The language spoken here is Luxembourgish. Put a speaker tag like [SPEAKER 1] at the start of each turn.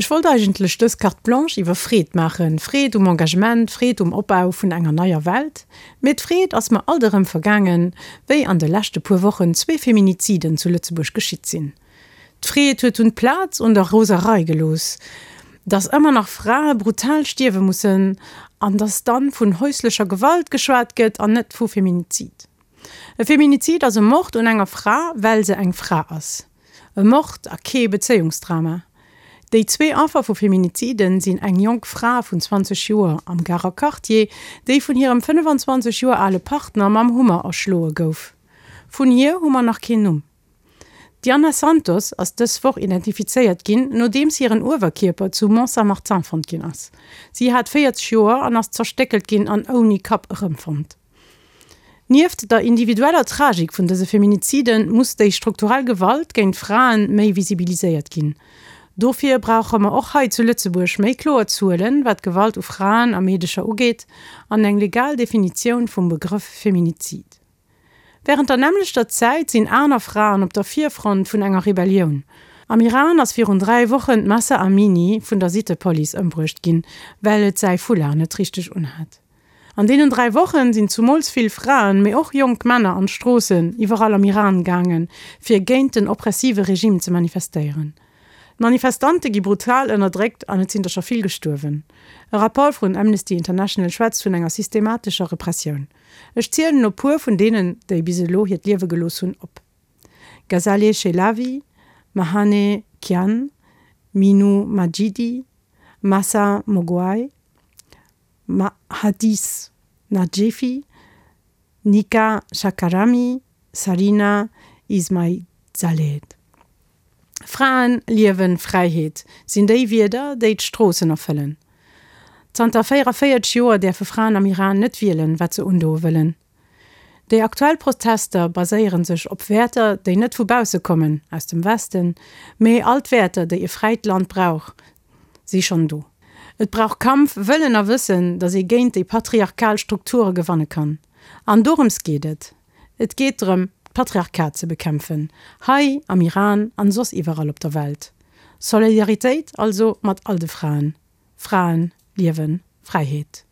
[SPEAKER 1] Ech wollt eigentlech dës Carte Blanche iwwer Freed maachen, Freed um Engagement, Freed um Opbau vun enger neier Welt. Mee d'Freed ass mer alt erëm vergaangen, wéi an de leschte puer Wochen zwee Feminiziden zu Lëtzebuerg geschitt sinn. D'Freed huet dunn d'Plaz un der Roserei gelooss, dass ëmmer nach Frae brutal stierwe mussen an dass dann vun häuslecher Gewalt geschwat gëtt an net vu Feminizid. E Feminizid ass e Mord un enger Fra, well se eng Fra ass. E Mord a kee Bezéiungsdrama. Déi zwee Affer vu Feminiziden sinn eng jonk Fra vun 20 Joer am Garer Quartier, déi vun hirem 25 Joer ale Partner mam Hummer erschloe gouf. Vun hir hu mer nach keen Numm. D'Diana Santos ass dës Woch identifizéiert ginn, nodeems hiren Uewerkierper zu Mont-Saint-Martin fonnt ginn ass. Si hat 40 Joer an ass zerstéckelt ginn an ouni Kapp erëmfonnt. Nieft der individueller Tragik vun dëse Feminizide muss déi strukturell Gewalt géint Frae méi visibiliséiert ginn. Dofir brauche mer och hei zu Lëtzebuerg méi kloer Zuelen, wat d'Gewalt u Fraen a Meedecher ugeet, an eng legal Definitioun vum Begrëff Feminizid. Wärend der nämmlechter Zäit sinn aner Fraen op der Virfront vun enger Rebellioun. Am Iran ass virun 3 Wochen d'Mahsa Amini vun der Sittepolice ëmbruecht ginn, well et säi Foulard net richteg unhat. An deenen 3 Wochen sinn zumools vill Fraen, mee och jonk Männer an d'Stroossen iwwerall am Iran gaangen, fir géint den oppressive Regime ze manifestéieren. D'Manifestante gi brutal ënnerdréckt an et sinn der scho vill gestuerwen. E Rapport vun Amnesty International schwätzt vun enger systematescher Repressioun. Ech zielen elo puer vun deenen, déi bis elo hiert Liewe gelooss hunn, op, Ghazaleh Chelavi, Mahane Kian, Minou Majidi, Mahsa Moghwai, Hadis Najefi, Nika Shakarami, Sarina Ismailzadeh. Fraen, Liewen, Fräiheet sinn déi Wierder, déi d'Stroossen erfëllen. Zanter 44 Joer däerfe Fraen am Iran net wielen, wat se undoe wëllen. Déi aktuell Protester baséiere sech op Wäerter, déi net vu bausse kommen, aus dem Westen, mee all d'Wäerter, déi e fräit Land brauch, si schonn do. Et brauch Kampf, Wëllen a Wëssen, datt ee géint déi patriarchal Strukture gewanne kann. An dorëms geet et. Et geet drëm, d'Patriarchat ze bekämpfen, hei am Iran an soss iwwerall op der Welt. Solidaritéit also mat all de Fraen. Fraen, Liewen, Fräiheet.